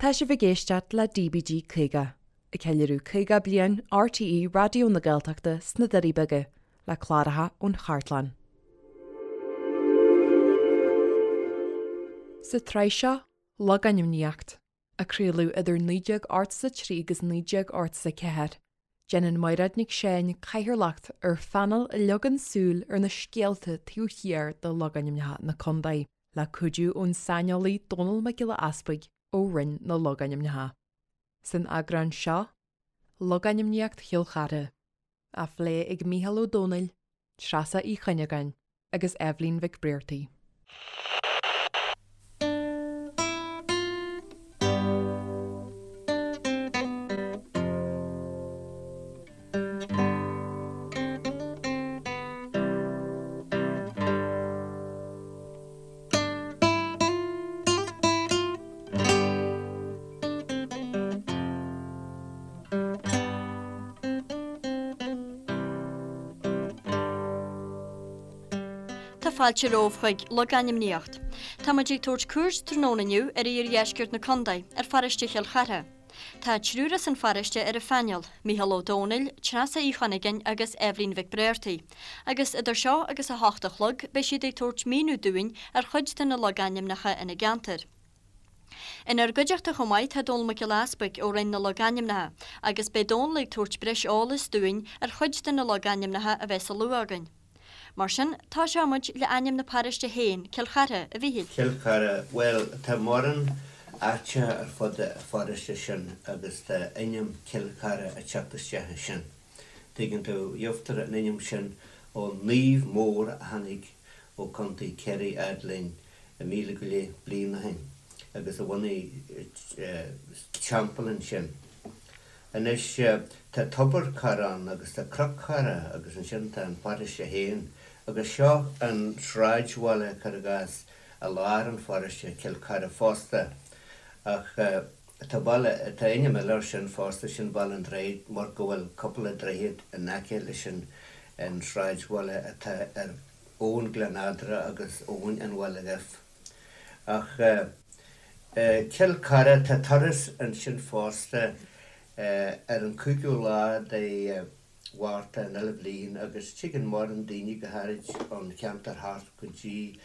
Tá sibh ag éisteacht le DBG 50, ag ceiliúradh 50 bliain RTÉ Raidió na Gaeltachta sna Doirí Beaga, le cláracha ón chartlann. Sa tsraith seo, Logainmníocht, a craoladh idir 1983 agus 1984, déanann Mairéad Nic Seáin cathaoirleacht ar phainéal a leagann súil ar na scéalta taobh thiar de logainmneacha na contae, le cuidiú ón saineolaí Dónall Mac Giolla Easpaig ó Roinn na Logainmneacha. San eagrán seo, Logainmníocht Chill Chartha, á phlé ag Mícheál Ó Domhnaill, Treasa Uí Chuinneagáin agus Eibhlín Mhic Briartaigh. Tá fáilte romhaibh chuig Logainmníocht. Tá muid ag tabhairt cuairt tráthnóna inniu ar iardheisceart na contae, ar pharóiste Chill Chartha. Tá triúr as an pharóiste ar an phainéal, Mícheál Ó Domhnaill, Treasa Uí Chuinneagáin agus Eibhlín Mhic Bréartaigh. Agus idir seo agus a hocht a chlog beidh siad ag tabhairt míniú dúinn ar chuid de na logainmneacha ina gceantar. Inár gcuideachta chomh maith tá Dónall Mac Giolla Easpaig ó Roinn na Logainmneacha agus beidh Dónall ag tabhairt breis eolais dúinn ar chuid de na logainmneacha a bheas á lua againn. Mar sin, tosóidh muid le ainm na paróiste féin, Cill Chartha, a Mhíchíl. Cill Chartha, bhuel, tá mórán áiteacha ar fud an pharóiste sin agus tá ainm Cill Chartha ag teacht isteach ansin. Tuigeann tú, gheobhtar an ainm sin ó naomh mór a tháinig ó Contae Chiarraí fhad linn 1000 go leith bliain ó shin agus a bhunaigh teampall ansin. Anois, tá Tobar Chartha ann agus tá Cnoc Chartha agus ansin tá an paróiste féin agus seo an sráidbhaile, cuir i gcás, i lár an pharóiste, Cill Chartha fosta. Ach tá baile, tá ainm eile air sin fosta, sin Baile an Droichid mar go bhfuil cúpla droichead in aice leis an an sráidbhaile atá ar abhainn Ghleann Eadra agus abhainn an Bhaile Dhuibh. Ach Cill Chartha, tá turas ansin fosta ar an 5ú lá de Mhárta an uile bhliain agus tigeann mórán daoine go háirid ón cheantar thart go dtí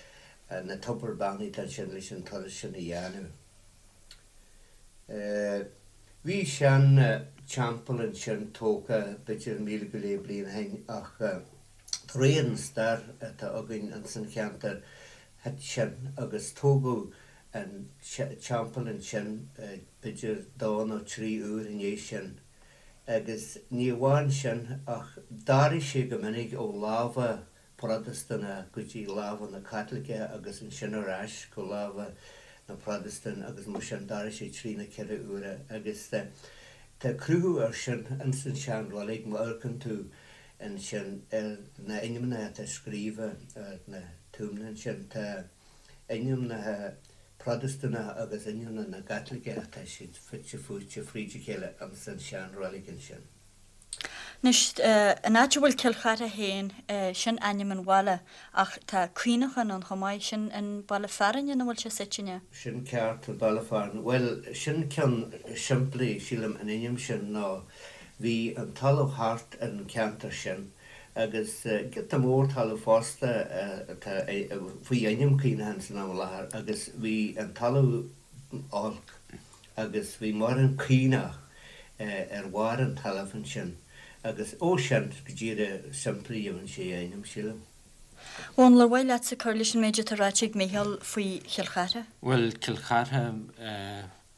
na tobar beannaithe atá ansin leis an turas sin a dhéanamh. Bhí sean teampall ansin tógtha b'fhéidir 1000 go leith bliain ó shin ach de réir an stair atá againn ins an cheantar thit sin agus tógadh an teampall ansin b'fhéidir dó nó trí uair i ndiaidh sin agus ní amháin sin ach d'athraigh sé go minic ó lámha Protastúnach go dtí lámha na Caitliceach agus ansin ar ais go lámha na Protastún agus mar sin d'athraigh sé trí nó ceithre huaire agus tá cruthú ar sin ins an sean roilig má amharcann tú ansin ar na ainmneacha atá scríofa ar na tuamanna ansin. Tá ainmneacha Protastúnacha agus ainmneacha na gCaitliceach, tá siad fite fuaite fríd a chéile ins an sean-reilig ansin. Anois, an áit a bhfuil Cill Chartha féin, sin ainm an bhaile, ach tá Caonachán ann chomh maith, sin an baile fearainn ina bhfuil sé suite, an ea? Sin ceart, an baile fearainn. Bhuel, sin ceann simplí, sílim, an ainm sin ná Bhí an talamh thart ar an cheantar sin agus giota mór talaimh fosta atá faoi ainm Caonachán san am i láthair agus bhí an talamh olc agus bhí mórán caonach ar bharr an talaimh ansin agus ó sin go díreach simplí gheibheann sé a ainm, sílim. Dónall, ar mhaith leatsa cur leis an méid atá ráite ag Mícheál faoi Chill Chartha? Bhuel, Cill Chartha,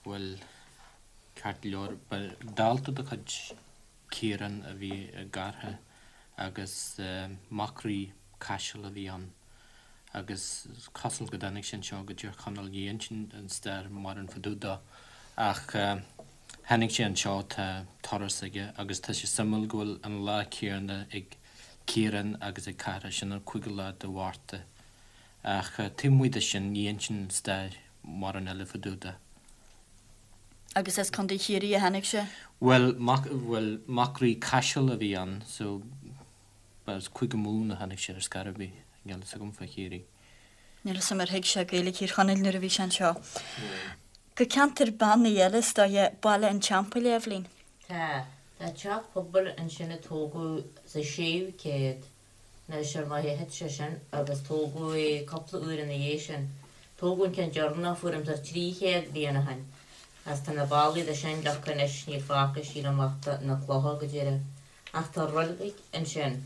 bhuel, Ceart go leor, ba dalta de chuid Ciarán a bhí i gCartha agus mac Rí Caiseal a bhí ann agus is cosúil go dtáinig sé anseo go Tír Chonaill, ní insíonn an stair mórán fá dtaobh dó ach tháinig sé anseo, tá turas aige agus tá sé suimiúil go bhfuil an lá céanna ag Ciarán agus ag Cartha, sin an cúigiú lá de Mhárta. Ach taobh amuigh de sin, ní insíonn an stair mórán eile fá dtaobh de. Agus as Contae Chiarraí a tháinig sé? Bhuel, mac, bhuel, mac Rí Caiseal a bhí ann, so ba as Cúige Mumhan a tháinig sé ar scor ar bith, níl a fhios agam fá Chiarraí. Níl a fhios agam ar thuig sé Gaeilge Thír Chonaill nuair a bhí sé anseo. Go ceantar beannaithe eile is dóiche, Baile an Teampaill, a Eibhlín. Tá. Tá teach pobail ansin a tógadh sa séú céad. Anois, ar ndóigh, thit sé sin agus tógadh é cúpla uair ina dhiaidh sin. Tógadh an ceann deireanach fuair thart 300 bliain ó shin. Agus tá na ballaí de sin leagtha anois, níl fágtha sílim ach na clocha go díreach. Ach tá roilig ansin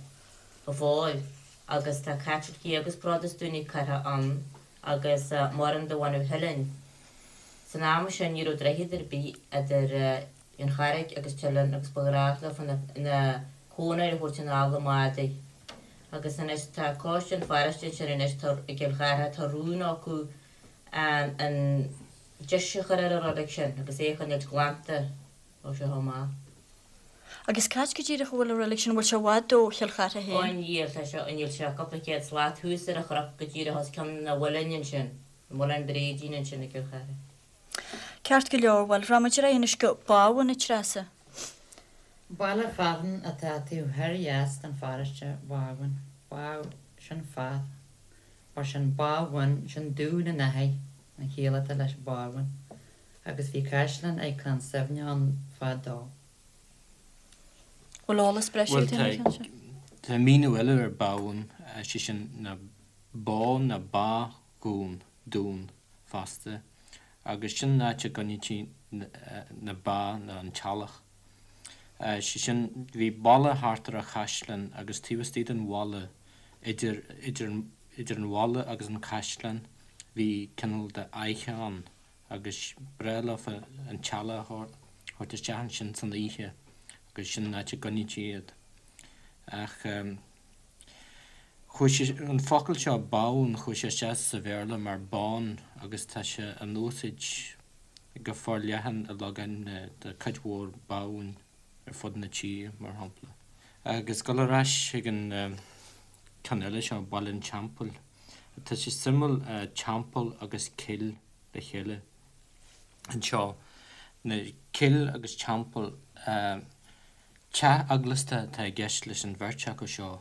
go fóill agus tá Caitlicigh agus Protastúnaigh curtha ann agus mórán de bhunadh Theilinn. San am sin ní raibh droichead ar bith idir An Charraig agus Teileann agus ba ghnách leofa na cónair a thabhairt anall i mbádaí. Agus anois tá coiste an pharóiste ansin anois tá i gCill Chartha tá rún acu an deis a chur ar an roilig sin agus é a choinneáilt glanta ó seo amach. Agus cá háit go díreach a bhfuil an roilig sin, an bhfuil sé i bhfad ó Chill Chartha Ó féin? níl, tá sé, níl sé cúpla céad slat thuas ar an chnoc go díreach os cionn an mhuilinn ansin, an muileann bréidín ansin i gCill Chartha. Ceart go leor, bhuel, rachaimid ar aghaidh anois go Bábhún, a Treasa. Baile fearainn atá taobh thoir dheas den pharóiste, Bábhún. Bá, sin fath, mar sin Bábhún, sin dún an fhathaigh, an chiall atá leis Bábhún. Agus bhí caisleán ag Clann Suibhne ann fadó. Bhfuil eolas breise Bhuel, agat ar an tá, cheann seo? tá míniú eile ar Bábhún, sé sin ná bá ná bá dhún, dún, fosta, agus sin an áit a gcoinnítí na ba nó an t-eallach. Sé sin, bhí balla thart ar an chaisleán agus taobh istigh den bhalla, idir, idir, idir an bhalla agus an caisleán, bhí cineál de fhaiche ann agus b'fhearr leofa an t-eallach a thabhairt isteach ansin san oíche agus sin an áit a gcoinnítí iad. Ach. Chuaigh sé, an focal seo bábhún, chuaigh sé isteach sa Bhéarla mar bawn agus tá sé in úsáid go forleathan i logainmneacha, tá cuid mhór bábhúin ar fud na tíre, mar shampla. Agus dul ar ais chuig an ceann eile seo, Baile an Teampaill, tá sé suimiúil, teampall agus cill le chéile anseo, na cill agus teampall, Teach eaglasta atá i gceist leis an bheirt acu seo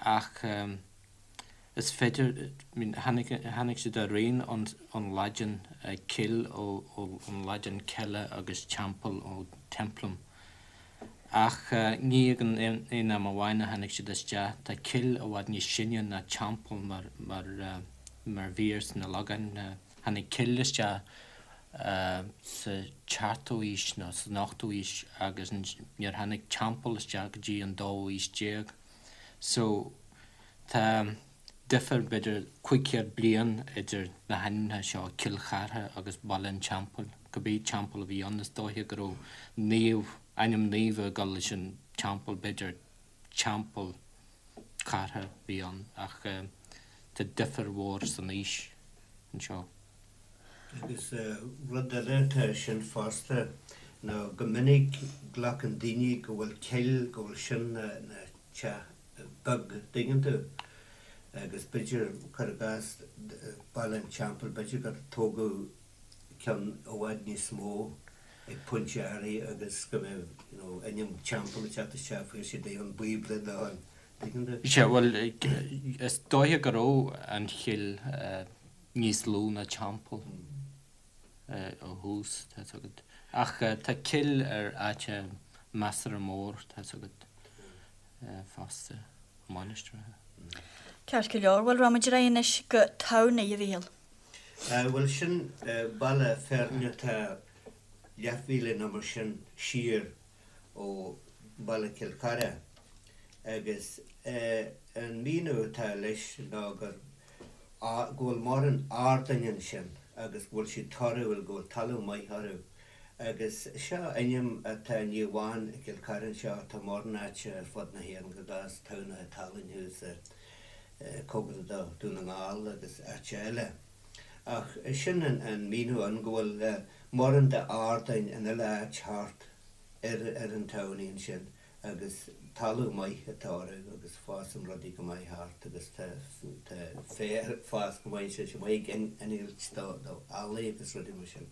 ach is féidir, I mean, tháinig, tháinig siad araon ón Laidin, cill ón Laidin cella agus teampall ó templum. Ach ní ag an aon am amháin a tháinig siad isteach, tá cill i bhfad níos sine ná teampall mar, mar, mar mhír sna logainmneacha. Tháinig cill isteach sa tseachtú haois nó san ochtú haois agus níor tháinig teampall isteach go dtí an dóú haois déag. So tá difear b'fhéidir 500 bliain idir na hainmneacha seo, Cill Chartha agus Baile an Teampaill. Cibé teampall a bhí ann is dóiche go raibh naomh, ainm naoimh ag dul leis an teampall, b'fhéidir Teampall Chartha a bhí ann ach tá difear mhór san aois anseo. Agus rud eile atá ansin fosta ná go minic glacann daoine go bhfuil cill, go bhfuil sin na teach beag, dtuigeann tú? Agus b'fhéidir, cuir i gcás, Baile an Teampaill, b'fhéidir gur tógadh ceann i bhfad níos mó ag pointe áirithe agus go mbeadh, you know, ainm teampall ag teacht isteach, fuair siad é ón Bíobla nó an, dtuigeann tú? Sea, bhuel, is dóiche go raibh an chill níos lú ná teampall ó thús, tá's agat. Ach tá cill ar áit measartha mór, tá's agat, fosta, mainistreacha. Ceart go leor, bhuel, rachaimid ar aghaidh anois go Tamhnaigh, a Mhíchíl. Bhuel, sin baile fearainn atá leathmhíle nó mar sin siar ó bhaile Chill Chartha agus an míniú atá leis ná gur go bhfuil mórán ardáin ansin agus go bhfuil siad torthúil, go bhfuil talamh maith orthu. Agus seo ainm atá ní amháin i gCill Chartha anseo, tá mórán áite ar fud na hÉireann, cuir i gcás Tamhnach Talainn thuas cóngarach do Dún na nGall agus áite eile. Ach sin an míniú ann, go bhfuil mórán de ardáin in uile áit thart ar ar an tamhnaigh ansin agus talamh maith atá orthu agus fásann rudaí go maith thart agus tá tá féar ag fás go maith ansin, sé maith ag innilt do do eallaigh agus rudaí mar sin.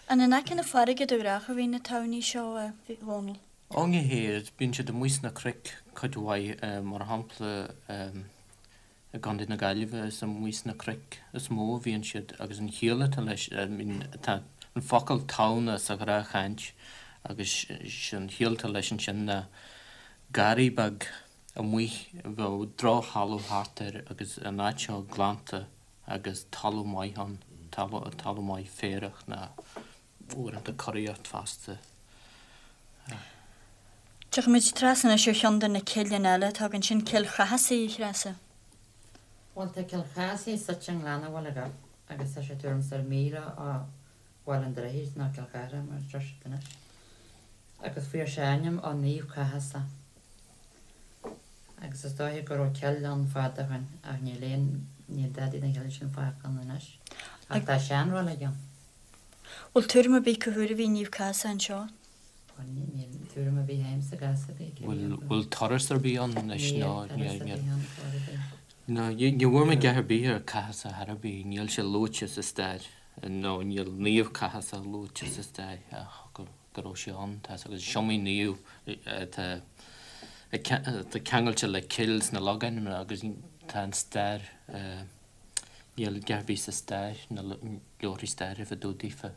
An in aice na farraige de ghnáth a bhíonn na tamhnaí seo, a Dhónaill? Ó ní hea, bíonn siad amuigh sna cnoic cuid mhaith, mar shampla i gContae na Gaillimhe is amuigh sna cnoic is mó a bhíonn siad agus an chiall atá leis, I mean tá an focal tamhna sa ghnáthchaint agus sé an chiall atá leis ansin ná garraí beag amuigh a bheadh drochthalamh thart air agus an áit seo glanta agus talamh maith ann, talamh maith féarach ná uaireanta curaíocht fosta. Tiocfaimid trasna anois ar cheann de na cilleanna eile atá againn, sin Cill Chathasaigh, a Threasa. Bhuel, tá Cill Chathasaigh suite i nGleann an Bhaile Ghib agus tá sé tuairim is ar mhíle ó Bhaile an Droichid, nó Cill Chartha mar a deir siad anois, agus fuair sé a ainm ó Naomh Cathasach. Agus is dóiche go raibh cill ann fad ó shoin ach níl aon, níl dadaí den chill sin fágtha ann anois. Ach tá seanreilig ann. Bhfuil tuairim ar bith cá huair a bhí Naomh Cathasach anseo? Bhuel, níl tuairim ar bith agamsa gcás ar bith cé Bhfuil, bhfuil turas ar bith ann anois Níl nó turas níl, ar níl. bith ann chor ar bith. No, ní bhfuair mé dhath ar bith ar Cathasach ar bith, níl sé luaite sa stair, nó níl Naomh Cathasach luaite sa stair ach go, go raibh sé ann, tá agus is iomaí naomh atá, atá ceangailte le cill sna logainmneacha agus tá an stair, Níl a dhath ar bith sa stair, na leabharthaí staire fá dtaobh daofa.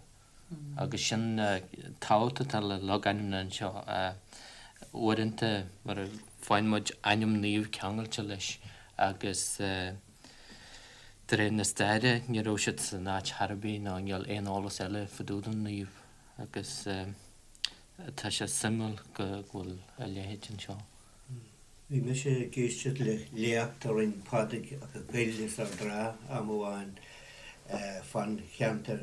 Agus sin tábhacht atá le logainmneacha anseo. Uaireanta mar a faigheann muid ainm naoimh ceangailte leis agus de réir na staire ní raibh siad san áit chor ar bith nó níl aon eolas eile fá dtaobh den naomh agus tá sé suimiúil go bhfuil a leithéid anseo. Bhí mise ag éisteacht le léacht a rinn Pádraig Mac Goill as Ard an Rátha am amháin fán cheantar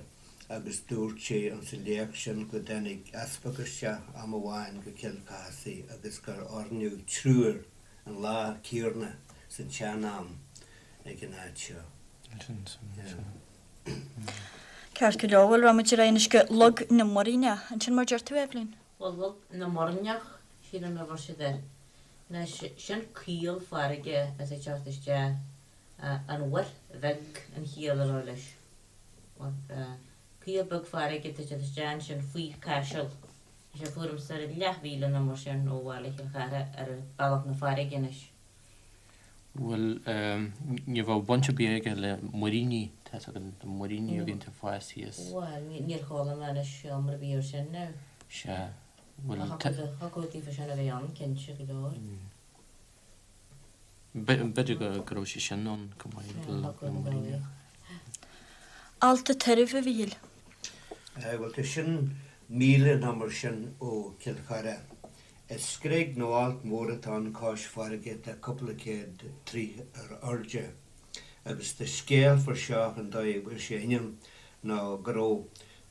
agus dúirt sé insa léacht sin go dtáinig easpag isteach am amháin go Cill Chathasaigh agus gur oirníodh triúr an lá céanna san tsean-am ag an áit seo. Ceart go leor, bhuel, rachaimid ar aghaidh anois go Log na Muiríneach. Ansin mar deir tú, Eibhlín? Bhuel, Log na Muirneach, sílim a bhfuil siad air. Anois, sin caol farraige atá ag teacht isteach, an Mhuir Bheag an chiall a bheadh leis. Caol beag farraige atá ag teacht isteach ansin faoi Chaiseal. Tá sé tuairim is ar leathmhíle nó mar sin ó bhaile Chill Chartha ar bealach na farraige anois. Bhuel, ní bheadh baint ar bith aige le muiríní, tá fhios agat, na muiríní a bhíonn ag fás thíos. Bhuel, níor chuala mé anois iomrá ar bith air sin now. Sea, bhuel. Ach thiocfadh daofa sin a bheith ann, cinnte go leor. B'fhéidir go raibh sé sin ann go maith, na muiríní. Allt a' Tairbh, a Mhíchíl. Bhuel, tá sin míle nó mar sin ó Chill Chartha. Is screig nó alt mór atá ann cois farraige atá cúpla céad troigh ar airde. Agus tá scéal fá seo an dóigh a bhfuair sé a ainm ná go raibh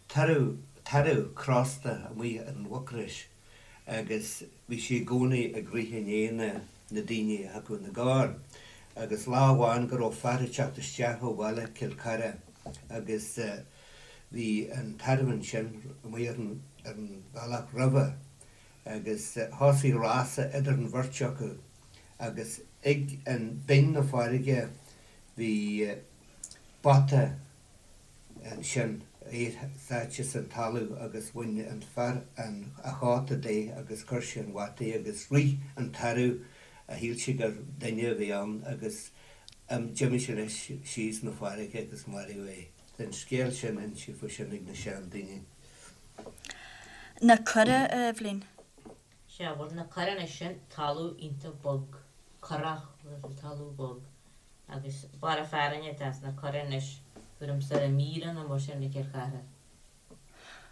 tarbh, tarbh crosta amuigh ar an Mhucrois agus bhí sé i gcónaí ag rith i ndiaidh na na daoine a thiocfadh ina gcarr. Agus lá amháin go raibh fear ag teacht isteach ó bhaile Cill Chartha agus bhí an tarbh ansin amuigh ar an ar an bhealach roimhe agus thosaigh rása idir an bheirt acu agus ag an binn na farraige bhí bata ansin é sáite san talamh agus bhain an fear an a chóta de agus chuir sé an bhata agus rith an tarbh a shíl sé gur duine a bhí ann agus d'imigh sé leis síos na farraige agus maraíodh é. Tá an scéal sin inste fá sin ag na sean daoine. Na Cora, a Eibhlín. Sea, bhuel, na Cora anois, sin talamh iontach bog, corrach, bhuel, talamh bog. Agus barra fearainn atá sna Cora anois, tuairim is ar míle nó mar sin ó Chill Chartha.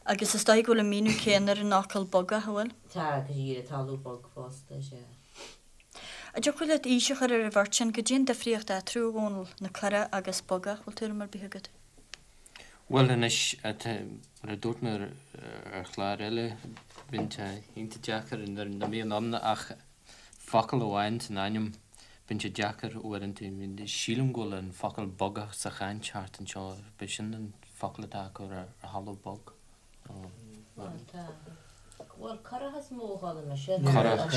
Agus is dóigh go bhfuil an míniú céanna ar an fhocal bogach, an bhfuil? Tá, go díreach, talamh bog fosta, sea. An dtiocfadh leat aois a chur ar an bheirt sin? Goidé an difríocht eatarthu, a Dhónaill, na Cora agus bogach, bhfuil tuairim ar bith agat? Bhuel anois, mar a dúirt mé ar chlár eile, bíonn sé iontach deacair nuair nach mbíonn ann ach focal amháin san ainm, bíonn sé deacair uaireanta. Sílim go bhfuil an focal bogach sa chaint thart anseo, b'shin an focal atá acu ar thalamh bog. Bhuel tá. Bhuel currach is mó a chuala mise. Currach,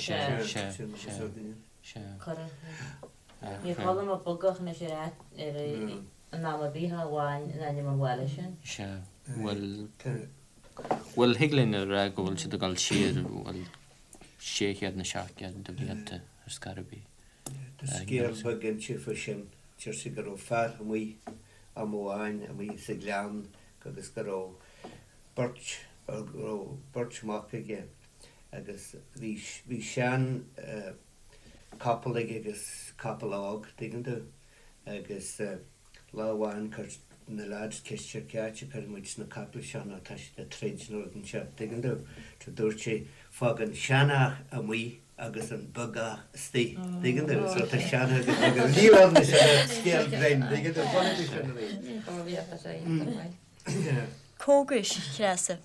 sea, sea, sea, sea. Currach. Níor chuala mé bogach anois ar áit, ar in am ar bith ach amháin in ainm an bhaile sin. Sea, bhuel, bhuel thig linn a rá go bhfuil siad ag dul siar, bhuel, 600 nó 700 de bhlianta ar scor ar bith. Tá scéal beag inste fá sin. Deir siad go raibh fear amuigh am amháin amuigh sa ghleann. Agus go raibh beirt, go raibh beirt mac aige agus bhí, bhí sean capall aige agus capall óg, tuigeann tú, agus lá amháin chuir na lads ceist air cá háit a chuirfidh muid na capaill seo nó tá siad ag troid nó rud inteacht, tuigeann tú. So dúirt sé, fág an seanfhear amuigh agus an beagach istigh, tuigeann tú, so tá seanfhear agus beagach, níl ann leis an scéal grinn, tuigeann tú, bhunaigh mé sin arís. Cógais, a Threasa.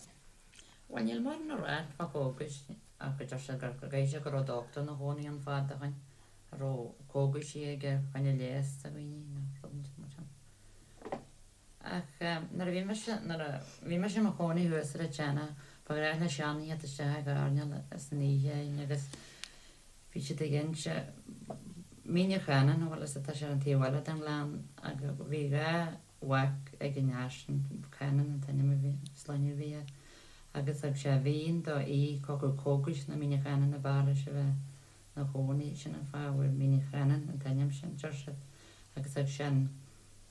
Bhuel, níl mórán le rá fá chógais ach go deir siad gur go gcaithfidh sé go raibh dochtúir ina chónaí ann fad ó shoin a raibh cógaisí aige fá choinne leigheas do dhaoine nó rud inteacht mar sin. Ach nuair a bhí mise, nuair a bhí mise i mo chónaí thuas ar an tSionnach, ba ghnách le seandaoine theacht isteach ag airneál san oíche againn agus bhí siad ag inse Mín an Channáin, bhuel is atá sé ar an taobh eile den ghleann agus bhí gá mhac ag an fhear sin, Cannon an t-ainm a bhí, sloinne a bhí air, agus thug sé mhín dó aoi chucu cógais na Míne Chanann ab fhearr leis a bheith 'na chónaí, sin an fáth a bhfuair Mín an Chanann an t-ainm sin, deir siad, agus thug sé an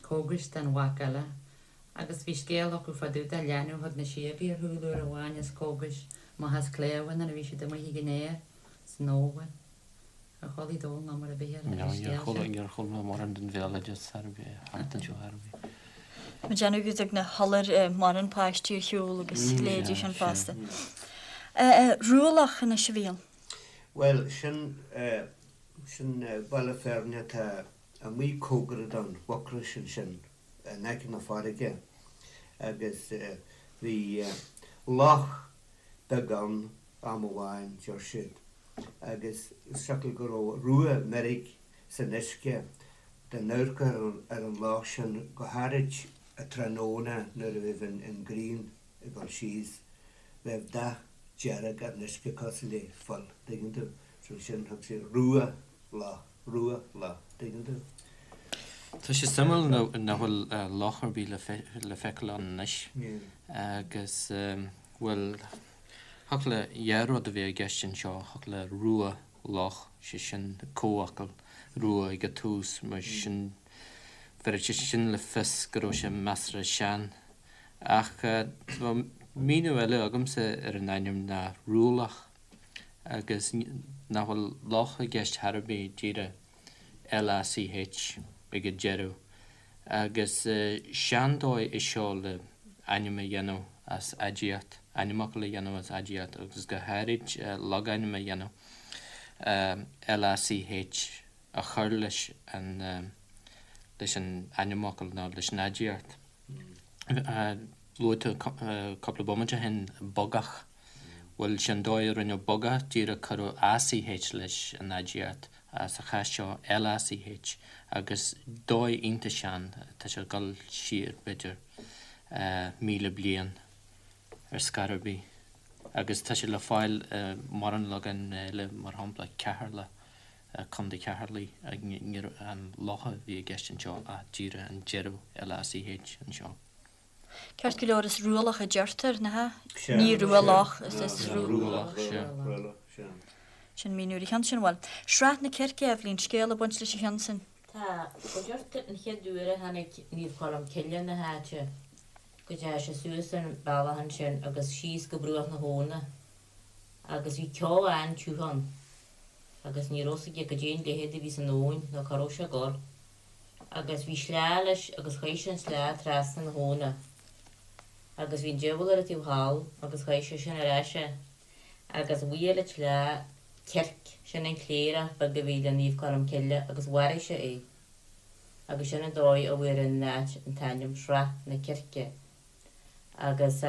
cógais don mhac eile. Agus bhí scéal acu fá dtaobh de leanbh a thug na síogaí ar shiúl uair amháin as cógais amach as cléabh nuair a bhí siad amuigh ag an fhéar san fhómhar. Ar chuala Dónall ná mar a bhí ar an scéal sin? Níor chuala mé mórán den bhéaloideas ar bith thart anseo ar bith. Mo dhéanamh go dtug na hiolair mórán páistí ar shiúl agus leithéidí sin fosta. Rualach anois a Mhíchíl. Bhuel, sin, sin baile fearainn atá amuigh cóngarach don Mhucrois ansin, in aice na farraige, agus bhí loch beag ann am amháin, deir siad, agus siocair go raibh rua meirg san uisce, dá n-amharcfá ar an loch sin, go háirid tráthnóna nuair a bheadh an ghrian ag dul síos, bheadh dath dearg ar an uisce cosúil le fuil, tuigeann tú. So sin, thug siad rua loch, rua loch, tuigeann tú. Tá sé suimiúil nach bhfuil loch ar bith le feiceáil ann anois agus, bhuel, Thiocfadh le dhá rud a bheith i gceist anseo, thiocfadh le rua loch, sé sin comhfhocal, rua ag an tús, mar sin bhéarfadh sé sin le fios go raibh sé measartha sean. Ach tá míniú eile agamsa ar an ainm ná rualach agus nach bhfuil loch i gceist chor ar bith, díreach LACH ag an deireadh. Agus seandóigh é seo le ainm a dhéanamh as aidiacht, ainmfhocal a dhéanamh as aidiacht agus go háirid logainm a dhéanamh, LACH a chur leis an leis an ainmfhocal nó leis an aidiacht. Luaigh tú cúpla bomaite ó shin bogach. Bhuel, sin dóigh a rinneadh bogach, díreach cuireadh ACH leis an aidiacht, sa chás seo LACH, agus dóigh iontach sean, tá sé ag dul siar, b'fhéidir, 1,000 bliain ar scor ar bith. Agus tá sé le fáil i mórán logainm eile, mar shampla Ceatharlach, Contae Cheatharlaigh, ní an loch a bhí i gceist anseo ach díreach an deireadh LACH anseo. Ceart go leor, is rualach a deirtear, nach ea? Ní rua loch, is rualach, sea. Sin míniú ar an cheann sin. Bhuel, Srath na Circe, Eibhlín, scéal ag baint leis an cheann sin? Tá, go deirtear an chéad uair a tháinig Naomh Colm Cille na háite, go dteachaidh sé suas an bealach ansin agus síos go bruach na habhna agus bhí ceo an-tiugh ann agus ní raibh 's aige goidé an leithead a bhí san abhainn nó cá raibh sé ag dul. Agus bhí sleá leis agus chaith sé an sleá trasna na habhna. Agus bhí an diabhal ar an taobh thall agus chaith sé sin ar ais é. Agus bhuail an tsleá circ, sin an cléireach beag a bhí le Naomh Colm Cille agus mharaigh sé é. Agus sin an dóigh a bhfuair an áit an t-ainm Srath na Circe. Agus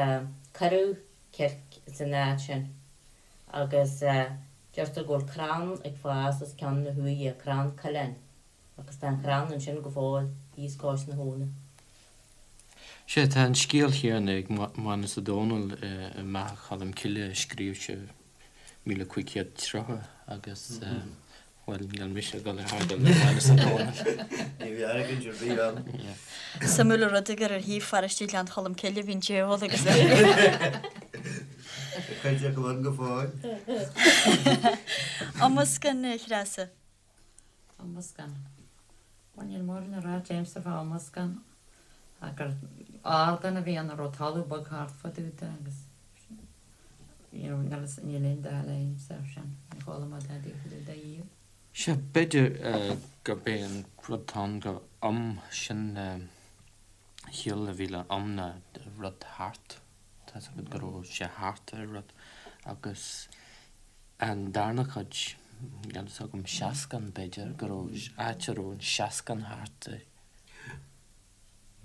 cuireadh circ san áit sin. Agus deirtear go bhfuil crann ag fás os cionn na huaighe, crann coileáin. Agus tá an crann ansin go fóill, thíos cois na habhna. Sea, tá an scéal chéanna ag Mánus Ó Domhnaill i mBeatha Cholm Cille a scríobh sé 1530 agus, bhuel, níl mise ag dul ar thar le Mánus Ó Domhnaill. Ní bheidh argóint ar bith ann. Suimiúil an rud é gur ar thaobh pharóiste Ghleann Cholm Cille a bhí an diabhal agus. Tá cuid acu ann go fóill. Iomscán, a Threasa. Iomscán. Bhuel, níl mórán le rá agamsa fá Iomscán ach gur. Ardán a bhí ann a raibh talamh beag thart fá dtaobh de agus you know níl fhios níl aon dath eile agamsa air sin, níor chuala mé dadaí fá dtaobh de riamh. Sea, b'fhéidir gurb é an rud atá ann gur um sin chiall a bhí le um ná rud thart, tá's agat go raibh sé thart ar rud agus an darna cuid, níl fhios agam, seascann b'fhéidir, go raibh áit a raibh an seascann thart air.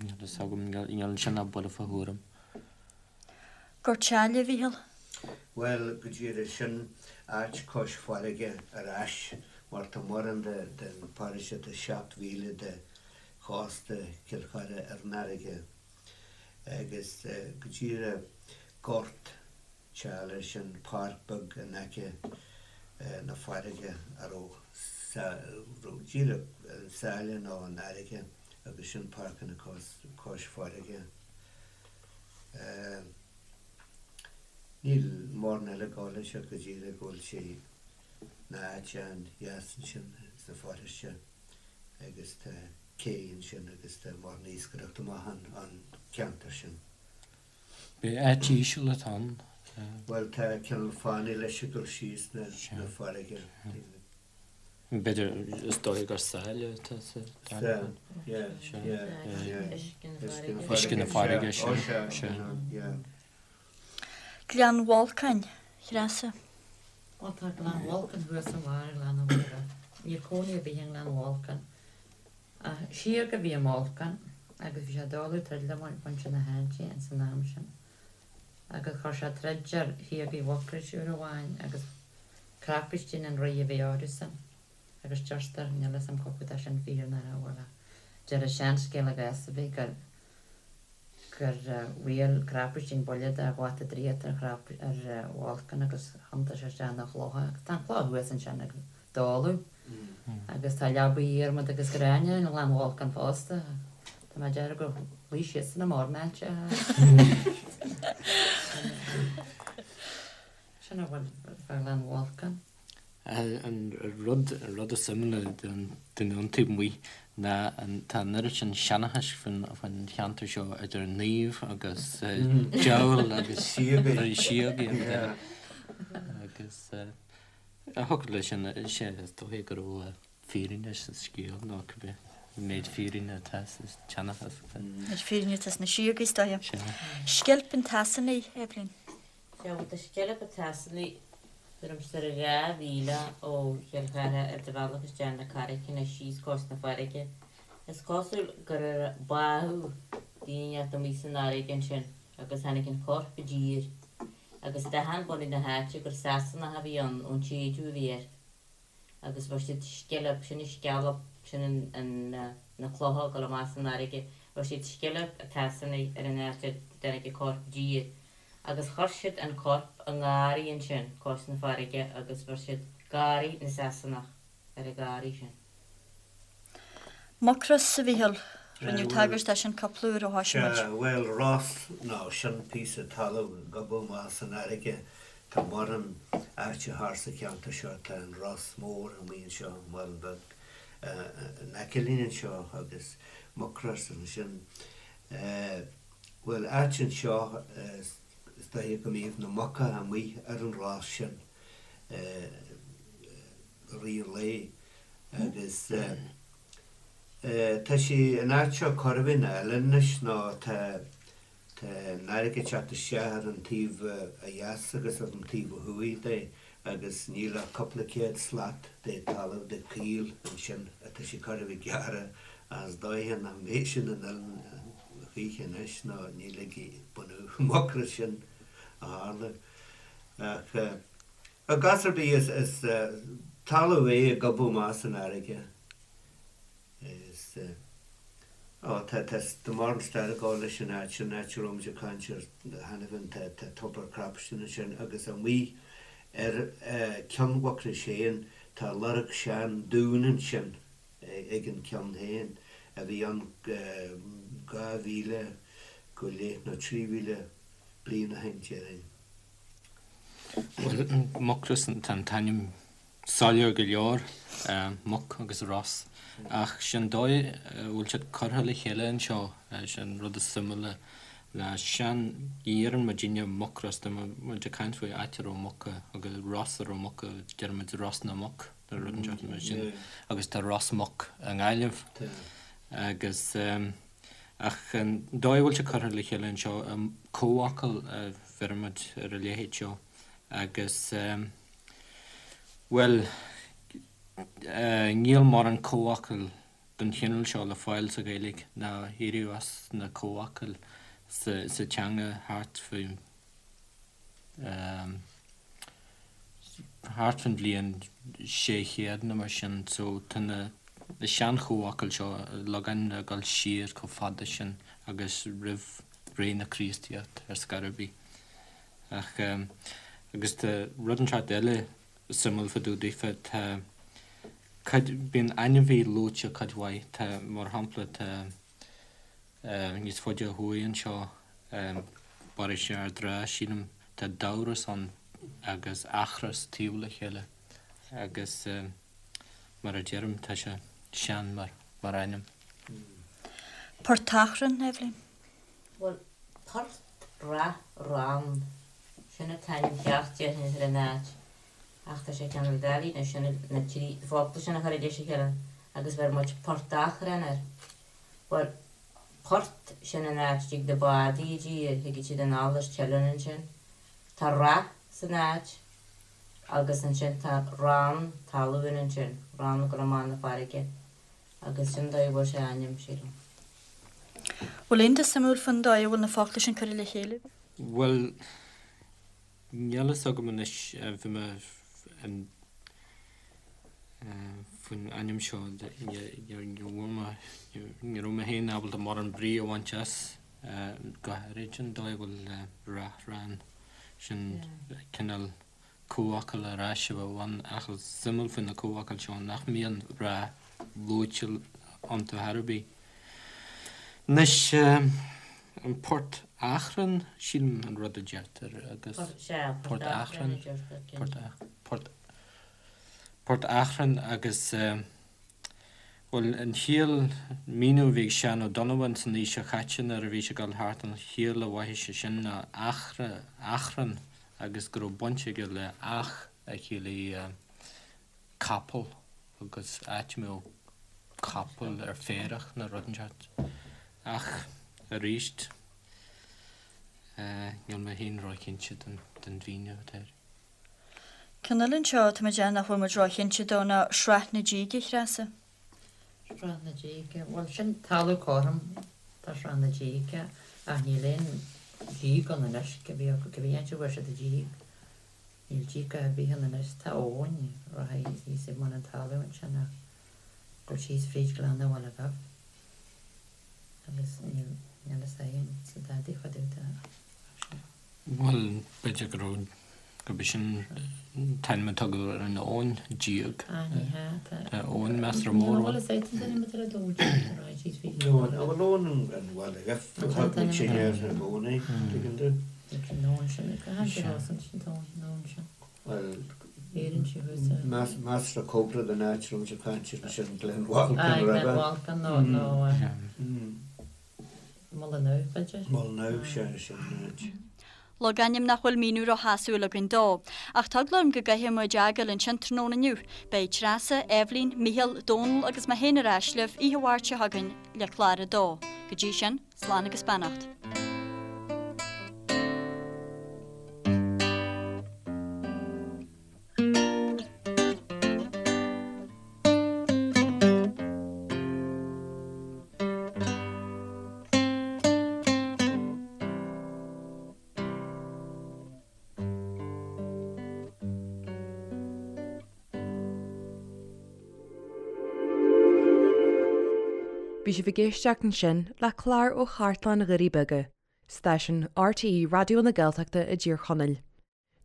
Níl fhios agam, níl ansin ach buille fá thuairim. Gort Sáile, a Mhíchíl? Bhuel, go díreach, sin áit cois farraige ar ais, mar tá mórán den pharóiste, tá 7 mhíle de chósta Chill Chartha ar an fharraige, agus go díreach Gort tSáile, sin páirc beag in aice na farraige a raibh raibh díreach an sáile nó an fharraige agus sin páirceanna cois farraige. Níl mórán eile ag gabháil leis ach go díreach go bhfuil sé ina áit an-dheas ansin sa pharóiste agus tá cé ansin agus tá mórán iascaireachta maith an ceantar sin. B'é áit íseal atá ann. Bhuel, tá cineál fánaidh leis ag dul síos na farraige. B'fhéidir, is dóigh gur sáile atá sa dara ceann. Yeah, yeah, yeah. Uisce na farraige, sea, sea. Gleann Bholcáin, a Threasa. Bhuel, tá Gleann Bholcáin thuas i mbarr Ghleann an Mhuire. Níl cónaí ar bith i nGleann Bholcáin. Ach síoga a bhí i mBolcán agus bhí sé ag dáileadh troid le muintir na háite ins an am sin. Agus chuir sé troid ar shíogaí Mhucrois uair amháin agus Crapistín an rí a bhí orthusan. Agus deirtear, níl fhios a'm cá fhad tá sin fíor nó nach bhfuil ach deir an seanscéal i gcás ar bith gur gur bhuail Crapistín buille de bhata draíochta ar ar Bholcán agus thiontaigh sé isteach ina chloch é. Agus tá an chloch thuas ansin ag dáileadh. Agus tá leabaidh adhmad agus gréine i nGleann Bholcáin fosta. Tá mé ag déarfadh gur luigh siadsan i mbarr na háite. Sin a bhfuil fá Ghleann Bholcáin. An rud an rud is suimiúla don duine ón taobh amuigh ná an tá an oiread sin seanchais faoin faoin cheantar seo idir naoimh agus diabhal agus síogaí síogaí agus A thiocfadh leis sin, sea, is dóiche go raibh fírinne sa scéal, nó cibé méid fírinne atá sa tseanchas. Méid fírinne atá sna síogaí, is dóiche. Sea. Sceilp an tSasanaigh, Eibhlín. Sea, bhuel, tá Sceilp an tSasanaigh tuairim is ar 2 mhíle ó Chill Chartha ar do bhealach isteach na Carraiceanna síos cois na farraige. Is cosúil gur báthadh duine inteacht amuigh san fharraige ansin agus tháinig an corp i dtír. Agus d'aithin bunadh na háite gur Sasanach a bhí ann ón tséideadh a bhí air. Agus bheir siad sceilp, sin an scealp, sin an, na clocha ag dul amach san fharraige, bheir siad Sceilp a' tSasanaigh ar an áit a dtáinig an corp i dtír. Agus chuir siad an corp i ngarraí ansin cois na farraige agus bheir siad Garraí na Sasanach ar an gharraí sin. Mucros, a Mhíchíl, rinneadh tagairt dó sin cúpla uair ó thoisigh muid. Sea, bhuel, ros, nó sin píosa talaimh ag gobadh amach san fharraige. Tá mórán áite thart sa cheantar seo, tá an Ros Mór amuigh anseo, an Mhuileann Beag in aice linn anseo agus Mucros ansin. Bhuel, áit anseo, is dóiche go mbíodh na muca amuigh ar an ros sin i rith an lae. Agus tá sé an áit seo chóir a bheith ina oileán anois nó tá tá an fharraige ag teacht isteach ar an taobh ó dheas agus ar an taobh ó thuaidh de agus níl ach cúpla céad slat de talamh de choill ansin atá sé chóir a bheith gearrtha ach is dóiche nach mbeidh sin in oileán choíche anois nó ní ligfidh bunadh Mhucrois sin a tharlú. Ach I gcás ar bith, is talamh é ag gobadh amach san fharraige. Is, ó, tá, tá, tá mórán stair ag gabháil leis an áit sin, áit a raibh muid ag caint air cheana féin, tá, tá tobar Crapistin ansin agus amuigh ar Ceann Mhucrois féin, tá lorg sean dún ansin ag an ceann féin a bhí ann 2,000 go leith nó 3,000 bliain ó shin, déarfainn. Bhuel, Mucros, tá an t-ainm soiléir go leor, muc agus ros, ach sin dóigh a bhfuil siad curtha le chéile anseo, sin rud is suimiúla ná sean, ní dheireann muidinne Mucros, tá muid ag caint faoi áit a raibh muca agus ros a raibh muca, deireann muid Ros na Muc nó rud inteacht mar sin agus tá Ros Muc i nGaillimh agus ach an dóigh a bhfuil sé curtha le chéile anseo, comhfhocal a bheireann muid ar a leithéid seo agus bhuel níl mórán comhfhocal den chineál seo le fáil sa Ghaeilge ná éiríodh as na comhfhocail sa teanga thart faoi thart faoin bhliain 600 nó mar sin so tá na sean-chomhfhocail seo logainmneacha ag dul siar chomh fada sin agus roimh ré na Críostaíochta ar scor ar bith. Ach agus tá rud inteacht eile suimiúil fá dtaobh daofa, tá cuid, bíonn ainmhí luaite cuid mhaith, tá, mar shampla, tá níos faide ó thuaidh anseo, paróiste Ard Ráth, sílim, tá Damhros ann agus Eachros taobh le chéile agus mar a deirim, tá sé sean mar, mar ainm. Portachrann, Eibhlín? Bhuel, Port Rath Rann, sin an t-ainm ceart déarfainn ar an áit, ach tá sé cineál doiligh anois sin na trí focla sin a chur i dtreis a chéile agus bheir muid Port Achrann air. Bhuel, port, sin an áit a dtig na bádaí i dtír, thigeadh siad anall as Teileann ansin. Tá rath san áit agus ansin tá rann talún ansin, rann ag dul amach 'na farraige. Agus sin dóigh a bhfuair sé a ainm, sílim. Bhfuil aon rud suimiúil faoin dóigh a bhfuil na focla sin curtha le chéile? Bhuel, níl fhios agam anois, bhí mé faoin ainm seo, ní raibh mé féin ábalta mórán brí a bhaint as, go háirid an dóigh a bhfuil Rath Rann, sin cineál comhfhocal ar ais a bheadh ann ach is suimiúil faoi na comhfhocail seo nach mbíonn rath luaite iontu chor ar bith. Anois, an Port Achrann, sílim an rud a deirtear agus Port Achrann, Port Port Achrann agus bhuel an chiall, míniú a bhí ag Seán Ó Donnabháin san aois seo chaite nuair a bhí sé ag dul thart, an chiall a mhothaigh sé sin ná Achra, Achrann agus go raibh baint aige le each a chiallaigh capall agus áit a mbeadh capaill ar féarach nó rud inteacht. Ach arís, níl mé féin róchinnte den mhíniú atá air. Ceann eile anseo atá mé ag déanamh nach bhfuil muid róchinnte dó ná Srath na Díge, a Threasa. Srath na Díge, bhuel sin talamh cothrom tá Srath na Díge ach níl aon díog ann anois, cibé acu cibé áit a bhfuair siad an díog, níl díog ar bith ann anois, tá abhainn rachaidh thíos ag bun an talaimh ansin ach go síos fríd Gleann an Bhaile Dhuibh agus níl níl fhios agam sa dadaí fá dtaobh de ach sin. Bhuel, b'fhéidir go raibh, gurb é sin an t-ainm a tugadh ar an abhainn, Díog. Ah, ní hea, tá. Tá abhainn measartha mór ann. Níl a fhios ag an duine a dúirt sé go raibh siad faoi. Nó an bhfuil abhainn an Bhaile Dhuibh, thug muid sin air i gcónaí, tuigeann tú? An abhainn sin, go háirithe an abhainn sin. Bhuel, Éireann sí thuas ar. measartha cóngarach don áit a raibh muid ag caint air ansin, Glen Bhalcan, Ah, Glen Bhalcan nó. Mullinoe, b'fhéidir? Mullinoe, sea, sin an áit. Logainm nach bhfuil míniú róshásúil againn dó. Ach tá eagla orm go gcaithfidh muid é a fhágáil ansin tráthnóna inniu. Beidh Treasa, Eibhlín, Mícheál, Dónal agus mé féin ar ais libh oíche Mháirt seo chugainn le clár a dó. Go dtí sin, slán agus beannacht. Bhí sibh ag éisteacht ansin le clár ó Chartlann Dhoirí Beaga, stáisiún RTÉ Raidió na Gaeltachta i dTír Chonaill.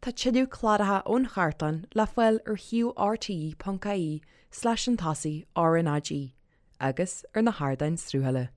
Tá tuilleadh cláracha ón chartlann le fáil ar shuíomh rte.ie slash an tosaigh RnaG agus ar na hardáin sruthála.